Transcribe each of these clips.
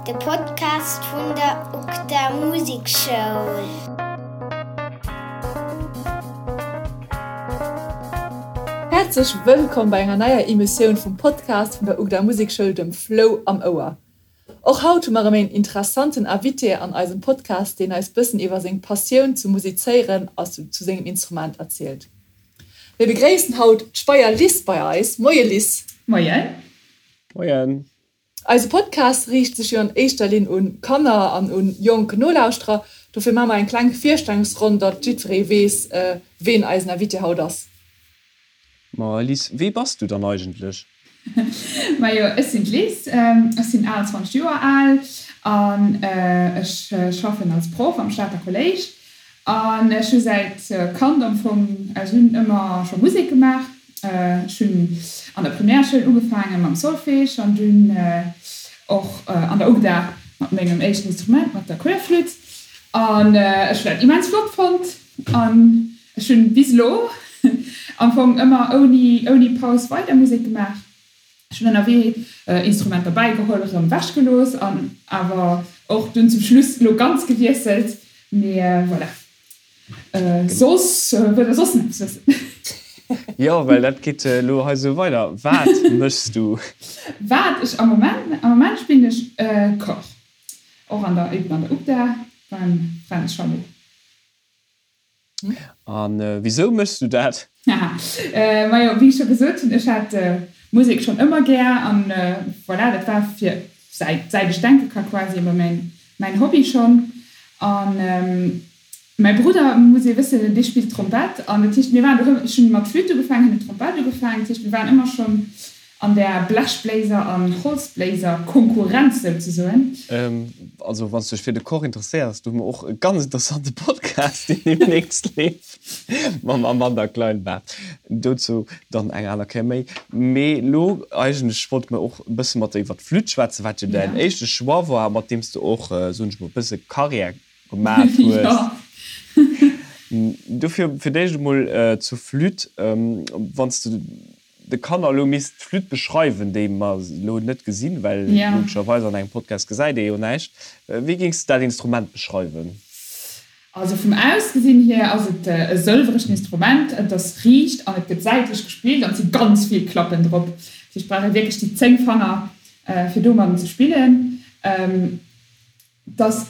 De Podcast vun der UGDA Musekschoul. Häerzlech wëllkomm bei enger neier Emissioun vum Podcast vun der UGDA Musekschoul, dem Flou am Ouer. Och haut hu mer erëm een interessanten Invité an eisem Podcast, deen eis bëssen iwwer seng Passioun zum Musizéieren a zu sengem Instrument erzielt. Mir begréissen haut d'Speyer Liz bei eis. Moie Liz. Moien. Moien. Eise Podcast riicht sech jo an éischter Linn un Kanner an un jonk Nolauschterer. Dofir maache mer eng kleng Virstellungsronn, datt jiddweree weess, ween eisen Invité haut ass. Ma Liz, wee bass du dann eigentlech? Majo, ech sinn d'Liz, ech sinn 28 Joer al an ech schaffen als Proff am Stater Kolléisch. An ech hu säit Kand am Fong, ech hunn ëmmer scho Musek gemaach. Ech hunn an der Primärschoul ugefaange mam Solfège an dunn och an der UGDA mat mengem éischten Instrument, mat der Querflütt. An ech hunn dat immens flott fonnt an Ech hunn bis elo am Fong ëmmer ouni ouni Paus weider Musek gemaach. Ech hunn ënnerwee Instrumenter bäigeholl, erëm wech gelooss an awer och dunn zum Schluss elo ganz gewiesselt. Mee voilà. Soss, wëllt der soss nach eppes wëssen? Jo, well dat geet elo hei esou weider. Wat méchs du? Wat ech am Moment, am Moment spillen ech Cor, och an der, eben an der UGDA beim Fränz Schallo. A wisou méchs du dat? Haha, majo, wéi ech scho gesot hunn, ech hat Musek schonn ëmmer gär an voilà, dat war fir säit säit ech denke ka quasi ëmmer mäin mäin Hobby schonn. An mäi Brudder, muss ee wëssen, dee spillt Trompett an dat heescht mir waren doheem, ech hunn mat Flütt ugefaangen, hien huet Trompett ugefaangen, dat heescht mir waren ëmmer schonn An der Blechbléiser an Holzbléiser Konkurrenz souzesoen. Also wann s du dech fir de Cor interesséiers, do hu mer och e ganz interessante Podcast, deen deemnächst leeft, mam Amanda Kleinbart. Dozou dann eng aner Kéier méi. Mee elo eigentlech wollte mer och e bësse mat der iwwer d'Flütt schwätzen, wat jo däin éischte Choix war, mat deem s de och, soen ech mol, e bësse Karriär gemaat hues. Dofir fir d'éischt emol zur Flütt, wann s de de Kanner elo misst d'Flütt beschreiwen, déi mer elo net gesinn, well logescherweis an engem Podcast gesäit ee jo näischt, wéi géings de dat Instrument beschreiwen? Also vum Ausgesinn hier ass et e sëlweregt Instrument, et ass riicht an et gëtt säitlech gespillt an et si ganz vill Klappen drop. Dat heescht, et brauch ee wierklech déi 10 Fanger fir domadden ze spillen. Et ass,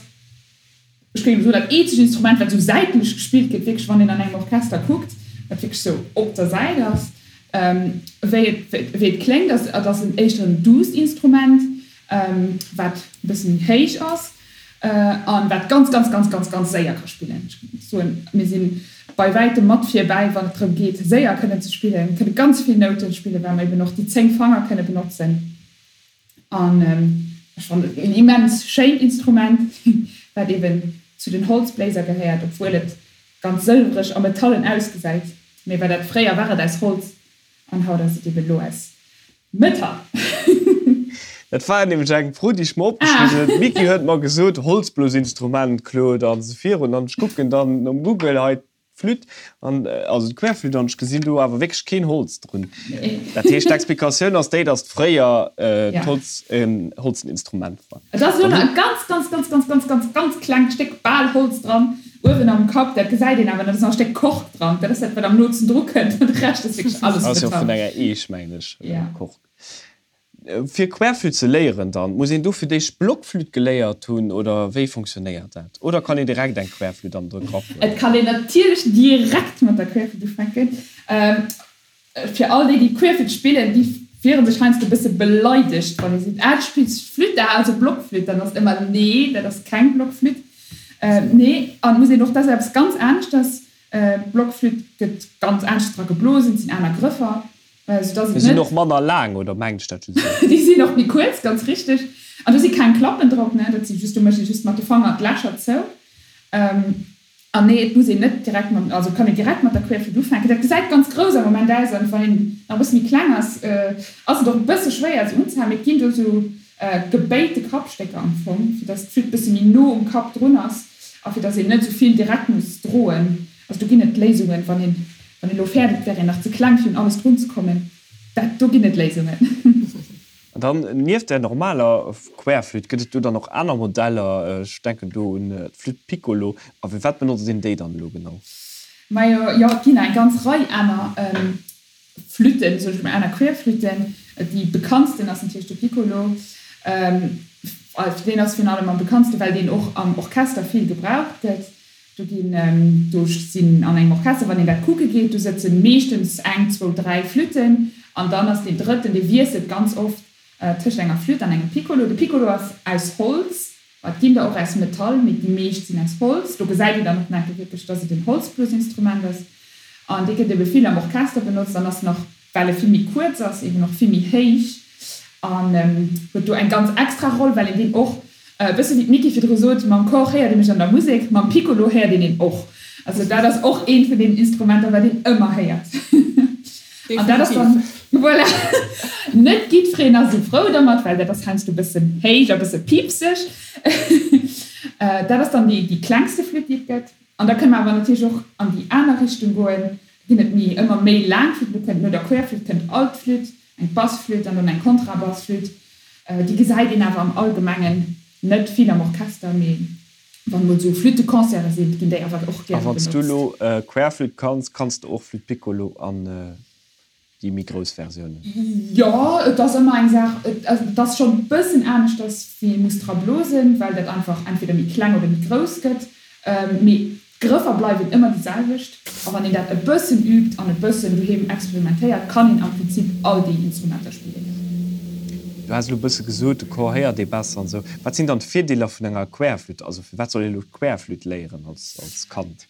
ech géing soen, dat eenzegt Instrument, wat esou säitlech gespillt gëtt, wierklech, wann een an engem Orchester kuckt, wat wierklech esou op der Säit ass. Wéi et, wéi et kléngt, ass, et ass en éischter en duusst Instrument, wat e bësse méi héich ass an wat ganz, ganz, ganz, ganz, ganz séier ka spillen. Ech géing soen, mir si bei wäitem mat virbäi, wann et drëm geet, séier kënnen ze spillen, kënne ganz vill Nouten spillen, well mer eben och déi 10 Fanger kënne benotzen. An ech fannen et en immens schéint Instrument, wat eben zu den Holzbléiser gehéiert, obwuel et ganz sëlwereg a metallen ausgesäit. Mee well dat fréier war et aus Holz an haut ass et eben elo aus Metall. Dat war nämlech eng Fro, déi ech mer opgeschriwwen hunn. D'Micky huet mer gesot, Holzblosinstrument, Claude, an esou virun. An ech kucken dann nom Google hei D'Flütt an, also d'Querflütt, an ech gesinn do awer wierklech keen Holz drun. Dat heescht, d'Explikatioun ass déi, datt fréier d'Holz en holzen Instrument war. Et ass elo nach e ganz, ganz, ganz, ganz, ganz, ganz, ganz klengt Stéck bal Holz dran, uewen am Kapp, dat gesäit een awer net, et ass nach e Stéck Kork dran, dat ass dat, wat am nootsten dru kënnt, an de Rescht ass wierklech alles Metall. Ass jo vun enger Eech, mengen ech, Kork. Fir Querflütt ze léieren dann, muss een do fir d'éischt Blockflütt geléiert hunn oder wéi fonctionnéiert dat? Oder kann een direkt eng Querflütt an de Grapp huelen? Et kann een natierlech direkt mat der Querflütt ufänken. Fir all déi, déi Querflütt spillen, déi wiere sech heiansdo e bësse beleidegt, wann ee seet, ah du spills Flütt, ah also Blockflütt. Dann ass et ëmmer, nee, dat ass keng Blockflütt. Nee, an et muss een och, dat ass eppes ganz aneschters, Blockflütt gëtt ganz aneschters dra geblosen, et sinn aner Grëffer. Déi sinn och manner laang, oder mengt ech dat just esou? Déi sinn och méi kuerz, ganz richteg. An do si keng Klappen drop, ne? Dat si just, do mécht ee just mat de Fanger d'Lächer zou. An nee, et muss een net direkt mat, also et kann een direkt mat der Querflütt ufänken. Dat gesäit ganz grouss am Moment aus, an wann een nach e bësse méi kleng ass, ass et och e bësse schwéier se unzehalen. Mee et ginn do esou gebéite Kappstécker am Fong, fir dass d'Flütt e bësse méi no um Kapp drun ass a fir dass een net esou vill direkt muss droen. Also do ginn et Léisungen, wann een, wann een elo fäert, et wär een nach ze kleng fir un alles drun ze kommen, dat, do ginn et Léisungen. An dann nieft der normaler Querflütt, gëtt et do dann och aner Modeller? Ech denken do un d'Flütt Piccolo. A fir wat benotzt een déi dann elo genau? Majo, jo, et ginn eng ganz Rei aner Flütten, soen ech mol, aner Querflütten. Déi bekanntsten ass natierlech de Piccolo. Deen ass virun allem am bekanntsten, well deen och am Orchester vill gebraucht gëtt. Do ginn, do sinn an engem Orchester, wann een dat kucke geet, do sëtze meeschtens eng, zwou, dräi Flütten an dann ass deen drëtten, dee wiesselt ganz oft tëscht enger Flütt an engem Piccolo. De Piccolo ass aus Holz, ma et ginn der och aus Metall, mee déi meescht sinn aus Holz. Do gesäit een dann och nach wierklech, dass et en Holzblosinstrument ass an dee gëtt ebe vill am Orchester benotzt an ass nach well e vill méi kuerz ass, eben och vill méi héich an huet do eng ganz extra Roll, well een deen och, e bësse wéi d'Micky virdru sot, mam Cor héiert ee mech an der Musek, mam Piccolo héiert een een och. Also dat ass och eent vun deenen Instrumenter, wat een ëmmer héiert. An dat ass dann, voilà, net jiddwereen ass esou frou dermat, well dat ass heiansdo e bëssen héich a bësse piipseg. Dat ass dann déi klengste Flütt, déi et gëtt. An da kënne mer awer natierlech och an déi aner Richtung goen. Da ginn et méi, ëmmer méi laang Flütten. Do kënnt no der Querflütt kënnt Altflütt, eng Bassflütt an dann eng Kontrabassflütt. Déi gesäit een awer am Allgemengen net vill am Orchester, mee wann emol esou Flütteconcerte sinn, ginn déi awer och A gäre wann s du benotzt. elo Querflütt kanns, kanns de och Flütt Piccolo an déi méi grouss Versiounen? Jo, et ass ëmmer eng Saach, et ass schonn e bëssen aneschters wéi ee muss dra blosen, well dat einfach entweder méi kleng oder méi grouss gëtt, mee d'Grëffer bleiwen ëmmer déi selwecht. A wann een dat e bëssen übt an e bëssen doheem experimentéiert, kann een am Prinzip all déi Instrumenter spillen. Du has elo e bësse gesot, de Chor héiert ee besser an esou. Wat sinn dann d'Virdeeler vun enger Querflütt? Also firwat soll ee elo d'Querflütt léieren als Kand?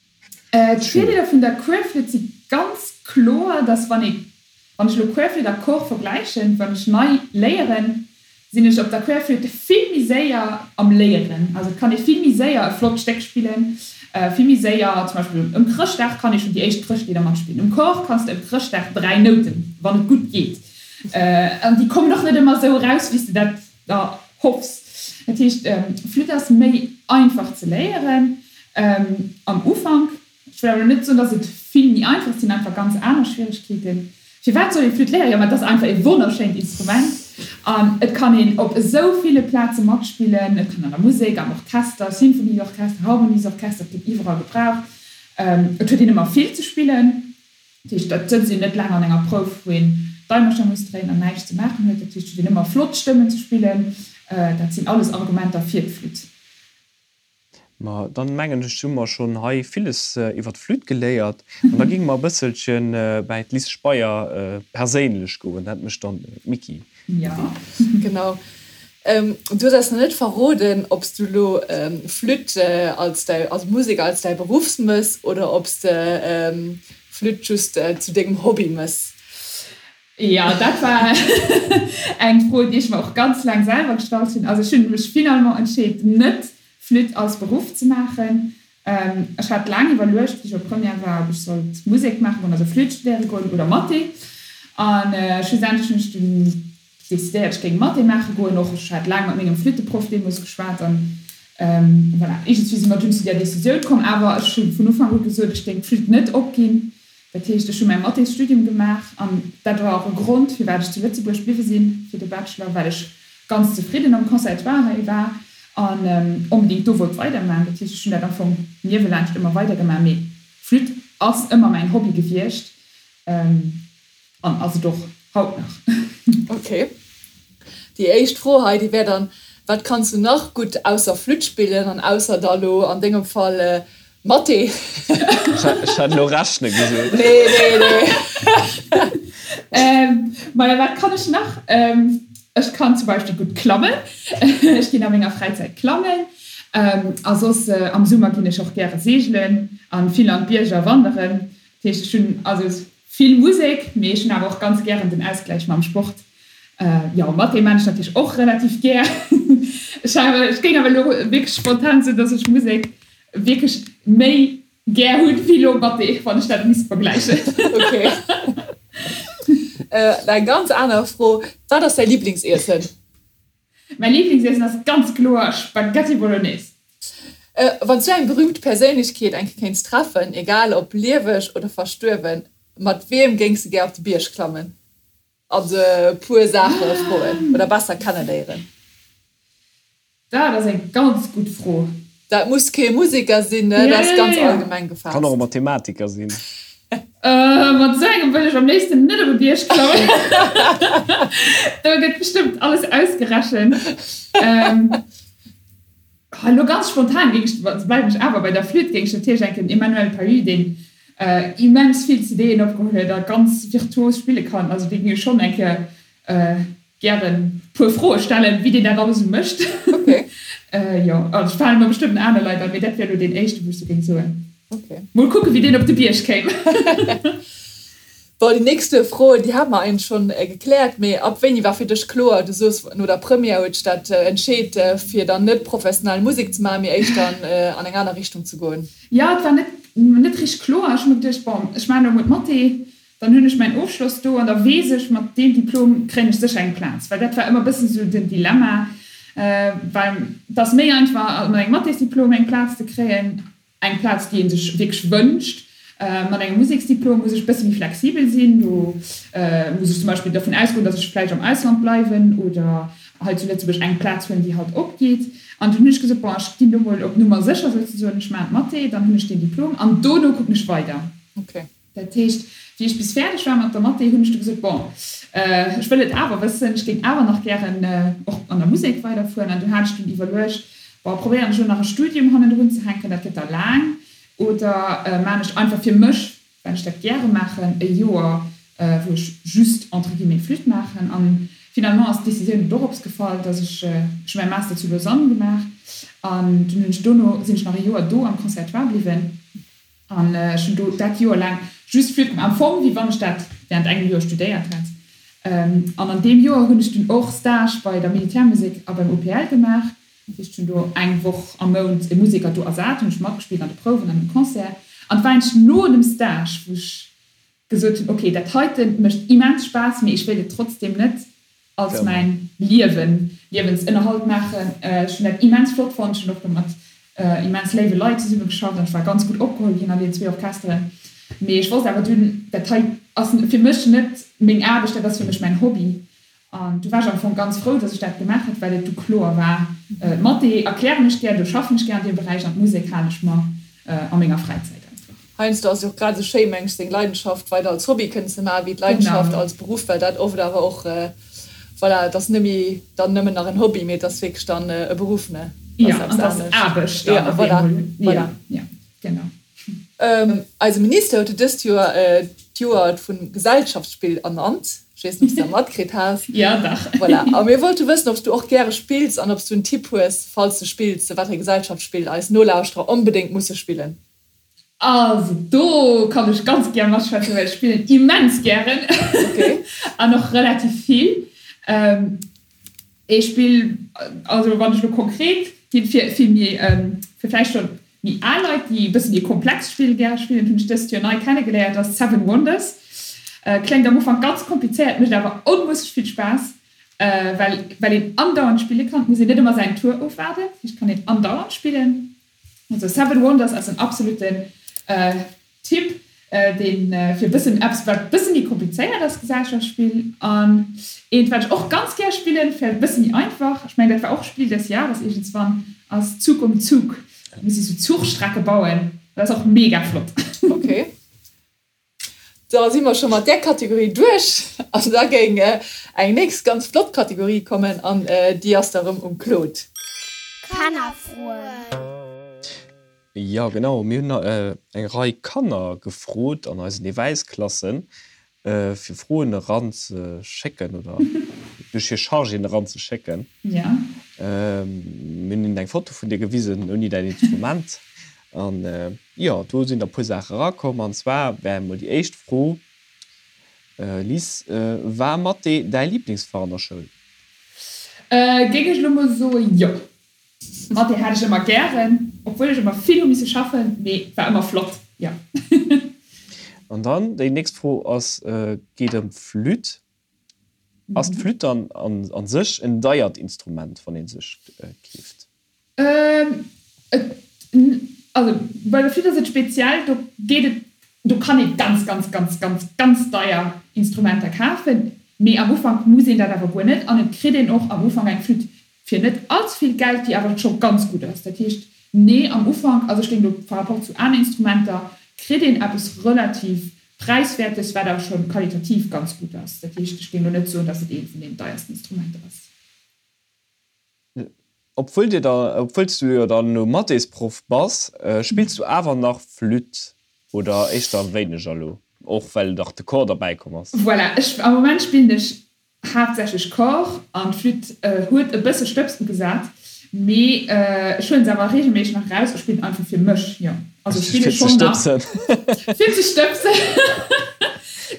D'Virdeeler vun der Querflütt si ganz kloer, dass wann ee, wann ech elo Querflütt a Cor vergläichen, wann ech nei léieren, sinn ech op der Querflütt vill méi séier am Léieren. Also et kann ee vill méi séier e flott Stéck spillen, vill méi séier, zum Beispill ëm Chrëschtdag kann ee schonn déi éischt Chrëschtlidder matspillen. Um Cor kanns de ëm Chrëschtdag 3 Nouten, wann et gutt geet, an déi kommen och net ëmmer esou eraus, wéi s de dat der hoffs. Dat heescht, Flütt ass méi einfach ze léieren am Ufank. Ech wëll awer net soen, dass et vill méi einfach ass, et sinn einfach ganz aner Schwieregkeeten. Firwat soll ee Flütt léieren? Jo, ma et ass einfach e wonnerschéint Instrument an et kann een op esou ville Plaze matspillen. Et kann an der Musek, am Orchester, Sinfonieorchester, Harmoniesorchester, et gëtt iwwerall gebraucht. Et huet een ëmmer vill ze spillen. Dat heescht, et sëtzt een net laang an enger Prouf, wou een d'Eimercher muss dréinen an näischt ze maachen huet. Dat heescht, et huet een ëmmer flott Stëmmen ze spillen. Dat sinn alles Argumenter fir d'Flütt. Ma dann mengen ech, hu mer schonn hei villes iwwer d'Flütt geléiert. An da géinge mer e bësselche bäi d'Liz Speyer perséinlech goen. Dat mécht dann d'Micky. Jo. Genau. Du hues eis nach net verroden, ob s du elo Flütt als däi, also Musek als däi Beruff mëss oder ob s de Flütt just zu dengem Hobby mëss. Jo, dat war eng Fro, déi ech mer och ganz laang selwer gestallt hunn. Also ech hunn mech finalement entscheet, net Flütt als Beruff ze maachen. Ech hat laang iwwerluecht, wéi ech op Première war, ob ech sollt Musek maache goen, also Flütt studéiere goen oder Mathé. An schlussendlech hunn ech dunn decidéiert, ech géing Mathé maache goen. Och ech hat laang mat mengem Flütteproff deemools geschwat an voilà, iergendswéi si mer dunn zu där Decisioun komm. Awer ech hu vun Ufank u gesot, ech géing d'Flütt net opginn. Dat heescht, ech hu mäi Mathésstudium gemaach an dat war och e Grond, firwat ech zu Lëtzebuerg bliwwe sinn fir de Bachelor, well ech ganz zefridden am Conservatoire hei war an onbedéngt do wollt weidermachen. Dat heescht, ech hunn dat am Fong niewelaanscht ëmmer weidergemaach, mee Flütt ass ëmmer mäin Hobby gewiescht an ass et och haut nach. Ok. Déi éischt Fro hei, déi wär dann, Wat kanns du nach gutt ausser Flütt spillen an ausser da lo an dengem Fall Mathé? Ech hat elo rechne gesot. Nee, nee, nee. Maja, wat kann ech nach? Ech kann zum Beispill gutt klammen. Ech ginn a menger Fräizäit klammen. A soss am Summer ginn ech och gäre seegelen an vill an d'Bierger wanderen. Dat heescht, ech hunn also vill Musek, mee ech hunn awer och ganz gären den Ausgläich mam Sport. Jo, Mathé maan ech natierlech och relativ gär. Ech géing awer elo wierklech spontan soen, dass ech Musek wierklech méi gär hunn wéi elo Mathé, wann ech dat misst vergläichen. Ok. Eng ganz aner Fro, Wat ass däi Liblingsiessen? Mäi Liblingsiessen ass ganz kloer Spaghetti Bolognese. Wann s du eng berüümt Perséinlechkeet eng Kéier kéints treffen, egal ob lieweg oder verstuerwen, mat wiem géings de gär op de Bierg klammen? Also e puer Saache froen oder besser kenneléieren? Dat ass eng ganz gutt Fro. Dat muss kee Museker sinn, ne? Dat ass ganz allgemeng gefaasst. Kann och e Mathematiker sinn. Mat esou engem wëll ech am léifsten net op e Bierg klammen. Do gëtt bestëmmt alles ausgerechent. Elo ganz spontan géing ech, bleiwen ech awer bei der Flütt, géing ech natierlech enken Emmanuel Pahud, deen immens vill CDen opgeholl huet a ganz virtuos spille kann, also dee géing ech schonn eng Kéier gären puer Froe stellen, wéi deen dat alles esou mécht. Okay. Jo, also et fale mer bestëmmt aner Leit an, mee dat wär elo deen éischten, wou ech sou géing soen. Okay. Mol kucken, wéi deen op de Bierg kéim. Bon, déi nächste Fro, déi hate mer eigentlech schonn gekläert, mee ab wéini war fir dech kloer, du soos no der Première huet dech dat entscheet, fir dann net professionell Musek ze maachen, mee éischter an eng aner Richtung ze goen? Jo, et war net net richteg kloer. Ech hu mer geduecht, bon, ech maachen elo emol d'Mathé, dann hunn ech mäin Ofschloss do an da weess ech, mat deem Diplom kréien ech sécher eng Plaz. Well dat war ëmmer e bëssen esou den Dilemma, well et ass méi einfach, mat engem Mathésdiplom eng Plaz ze kréien, eng Plaz, déi ee sech wierklech wënscht. Mat engem Museksdiplom muss ech e bësse méi flexibel sinn. Do muss ech zum Beispill dervun ausgoen, datt ech vläicht am Ausland bleiwen oder hei zu Lëtzebuerg eng Plaz hunn, déi halt opgeet. An dunn hunn ech gesot, bon, ech ginn do mol op Nummer sécher souzesoen, ech maachen d'Mathé, dann hunn ech deen Diplom an dono kucken ech weider. Okay. Dat heescht, wéi ech bis fäerdeg war mat der Mathé, hunn ech du gesot, bon, ech wëll et awer wëssen, ech géing awer nach gären och an der Musek weiderfueren. An du hat ech dunn iwwerluecht, bon, probéieren ech elo nach e Studium hannendrun ze hänken, dat gëtt da laang, oder maan ech einfach fir mech, well ech dat gäre maachen, e Joer, wou ech just entre guillemets Flütt maachen. An finalement ass d'Decisioun dorops gefall, dass ech, ech hu mäi Master zu Lausanne gemaach an dunn hunn ech dono sinn ech nach e Joer do am Conservatoire bliwwen. An ech hunn do dat Joer laang just Flütt gemaach, am Fong wéi wann ech dat während engem Joer studéiert hätt. An an deem Joer hunn ech dunn och Stage bei der Militärmusek a beim OPL gemaach. Dat heescht, ech hunn do eng Woch am Mount e Museker do ersat, hunn ech matgespillt an de Prouwen an um Concert. An et war eigentlech no dem Stage, wou ech gesot hunn, ok, dat heite mécht immens Spaass, mee ech wéilt et trotzdem net als mäin Liewen, Liewensënnerhalt maachen. Ech hunn dat immens flott fonnt, ech hunn och do mat immens léiwe Leit zesumme geschafft an ech war ganz gutt opgeholl ginn an deenen zwee Orchesteren. Mee ech wosst awer dunn, dat hei ass fir mech net meng Aarbecht, dat ass fir mech mäin Hobby. An du war ech am Fong ganz frou, dass ech dat gemaach hat, well et du kloer war, Mathé erklären ech gär, do schaffen ech gär an deem Beräich an d'Musek halen ech mer a menger Fräizäit einfach. Heiansdo ass et jo och grad esou schéi, meng ech, seng Leidenschaft weider als Hobby kënnen ze maachen, wéi d'Leidenschaft als Beruff, well dat oft awer och, voilà, et ass net méi dann nëmmen nach en Hobby, mee et ass wierklech dann e Beruff, ne? Jo, an et ass Aarbecht dann op eemol. Voilà, voilà. Genau. Eise Minister huet jo dëst Joer d'Joer vum Gesellschaftsspill ernannt. Ech weess net, ob s de dat matkritt has. Jo, dach. Voilà. A mir wollte wëssen, ob s du och gäre spills an ob s du en Tipp hues, falls du spills, wat fir e Gesellschaftsspill eis Nolauschterer onbedéngt musse spillen. Also do kann ech ganz gär matschwätzen, well ech spillen immens gären an och relativ vill. Ee Spill, also wann ech elo konkret ginn, fir fir méi fir vläicht schonn méi al Leit, déi e bësse méi komplex Spill gäre spillen, hunn ech dëst Joer nei kennegeléiert, ass Seven Wonders. Kléngt am Ufank ganz komplizéiert, mécht awer onmusseg vill Spaass, well well een andauernd spille kann. Et muss een net ëmmer säin Tour ofwaarden, dat heescht, et kann een andauernd spillen. Also Seven Wonders ass en absoluten Tipp, deen fir bëssen eppes wat bësse méi komplizéiert ass, Gesellschaftsspill. An eent wat ech och ganz gär spillen, fir e bësse méi einfach, ech mengen dat war och Spiel des Jahres iergendswann, ass Zug um Zug. Da muss ee sou Zuchstrecke bauen, dat ass och mega flott. Ok, da si mer scho mat där Kategorie duerch an da géing eng nächst ganz flott Kategorie kommen an déi ass da rëm um Claude. Kannerfroen. Jo genau, mir hunn eng Rei Kanner gefrot an eisen Ewäisklassen fir Froen eran ze schécken oder duerch hir Chargéen eran ze schécken. Mir hunn hinnen eng Foto vun dir gewisen ouni däin Instrument an jo do sinn der puer Saache erakomm an zwar wär emol déi éischt Fro, Liz, war Mathé däi Liblingsfach an der Schoul? Géing ech elo mol soe jo. Mathé hat ech ëmmer gären, obwuel ech ëmmer vill hu misse schaffen, mee et war ëmmer flott, jo. An dann déi nächst Fro ass, geet ëm d'Flütt. Ass d'Flütt dann a sech en deiert Instrument, wann ee sech keeft? Also bei der Flütt ass et speziell, do geet et, do kann ee ganz, ganz, ganz, ganz, ganz deier Instrumenter kafen. Mee am Ufank muss een dat awer guer net an et kritt een och am Ufank eng Flütt fir net all ze vill Geld, déi awer scho ganz gutt ass. Dat heescht, nee, am Ufank, also ech géing elo par rapport zu aner Instrumenter, kritt een eppes relativ Präiswäertes, wat awer scho qualitativ ganz gutt ass. Dat heescht, ech géing elo net soen, datt et eent vun deenen deiersten Instrumenter ass. Obwuel dir da, obwuel s du jo dann elo Mathésproff bass, spills du awer nach Flütt oder éischter wéineger elo, och well nach de Cor derbäi komm ass? Voilà, ech, am Moment spillen ech haaptsächlech Cor an d'Flütt huet e bësse Stëbs ugesat, mee ech huelen se awer reegelméisseg nach eraus a spillen einfach fir mech, jo. Also ech spille schonn nach. Fir ze stëbsen. Fir ze stëbsen.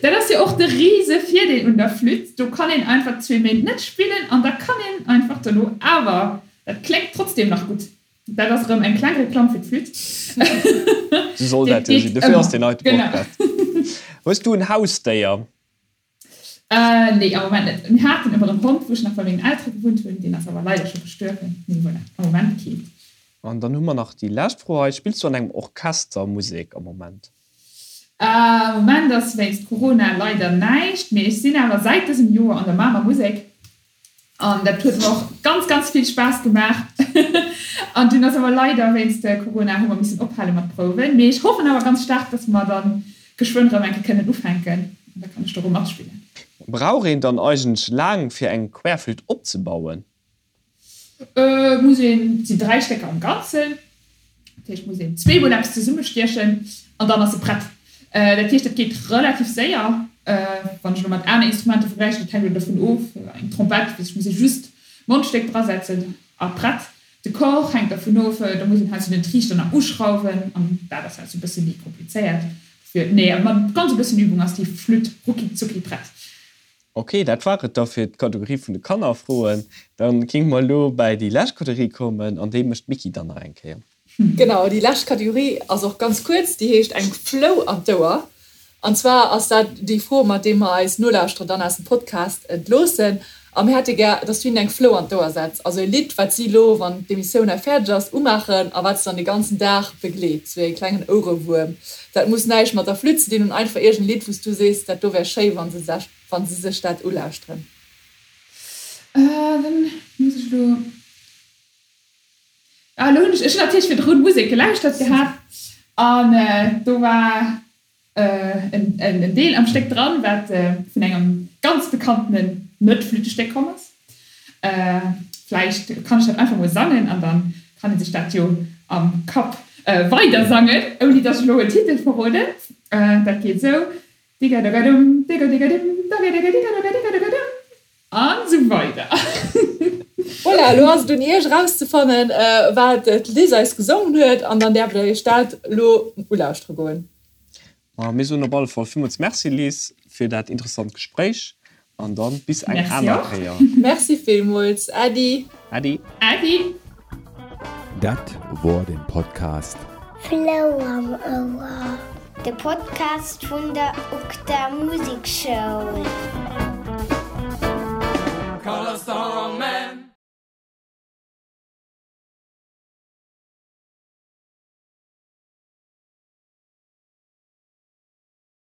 Dat ass jo och de rise Virdeel un der Flütt, do kann een einfach zwee Méint net spillen an da kann een einfach dono awer, dat kléngt trotzdem nach gutt. Dat ass erëm eng kleng Reklamm fir d'Flütt. Sou soll dat jo sinn, dofir ass deen heite Podcast. Hues du en Hausdéier? Nee, am Moment net. Mir haten ëmmer en Hond, wou ech nach bei mengen Eltere gewunnt hunn, deen ass awer leider scho gestuerwen. Mee voilà, am Moment keent. An dann hu mer nach déi lescht Fro hei, Spills du an engem Orchester Musek am Moment? Am Moment ass wéinst Corona leider näischt, mee ech sinn awer säit dësem Joer an der Mamer Musek an dat huet mer och ganz ganz vill Spaass gemaach. An dunn ass awer leider wéinst Corona hu mer missen ophale mat Prouwen, mee ech hoffen awer ganz staark, dass mer dann geschwënn rëm eng Kéier kënnen ufänken an da kann ech do rëm matspillen. Brauch een dann eigentlech laang fir eng Querflütt opzebauen? Et muss een, et sinn 3 Stécker am Ganzen, dat heescht muss een zweemol eppes zesummestiechen an dann ass se prett. Dat heescht dat geet relativ séier, wann ech elo mat aner Instrumenter vergläichen, dat hänkt elo dovun of, eng Trompett, weess ech, muss ee just d'Mondstéck drasetzen a prett. De Cor hänkt dervun of, do muss een heiansdo den Triichter nach uschrauwen an dat ass heiansdo e bësse méi komplizéiert. Dofir, nee, mat ganz e bëssen Übung ass déi Flütt rucki zucki prett. Ok, dat war et da fir d'Kategorie vun de Kannerfroen. Da géinge mer elo bäi déi lescht Kategorie kommen an déi mécht d'Micky dann nach eng Kéier. Genau, déi lescht Kategorie ass och ganz kuerz, déi heescht eng Flou an d'Ouer. An zwar ass dat déi Fro, mat deem mer eis Nolauschterer dann aus dem Podcast entloossen. A mir hätte gär, dass du hinnen eng Flou an d'Ouer setz, also e Lidd, wat si elo, wann d'Emissioun hei fäerdeg ass, umaachen a wat se dann de ganzen Dag begleet, sou e klengen Ouerewuerm. Dat muss näischt mat der Flütt ze dinn hunn, einfach iergend e Lidd, wou s du sees, dat do wär schéi, wa se sech, wa se sech dat ulauschteren. Dann muss ech elo, ah, elo hunn ech, ech hunn natierlech virdrun Musek gelauschtert gehat an do war en Deel am Stéck dran, wat vun engem ganz bekanntenen Net-Flüttestéck komm ass. Vläicht kann ech dat einfach mol sangen an dann kann ee sech dat jo am Kapp weider sangen, ouni dass ech elo en Titel verroden. Dat geet esou, Digadogadum, digodigadimm, dagedigaddigadogaddigadogadum. An sou weider. Voilà, elo ass et un iech erauszefannen, wat d'Liz eis gesongen huet, an dann däerft der iech dat elo ulauschtere goen. Ma mir soen op alle Fall villmools Merci, Liz, fir dat interessant Gespréich an dann bis eng aner Kéier. Merci villmools. Äddi. Äddi. Äddi. Dat wor den Podcast. Flou am Ouer, de Podcast vun der UGDA Musekschoul.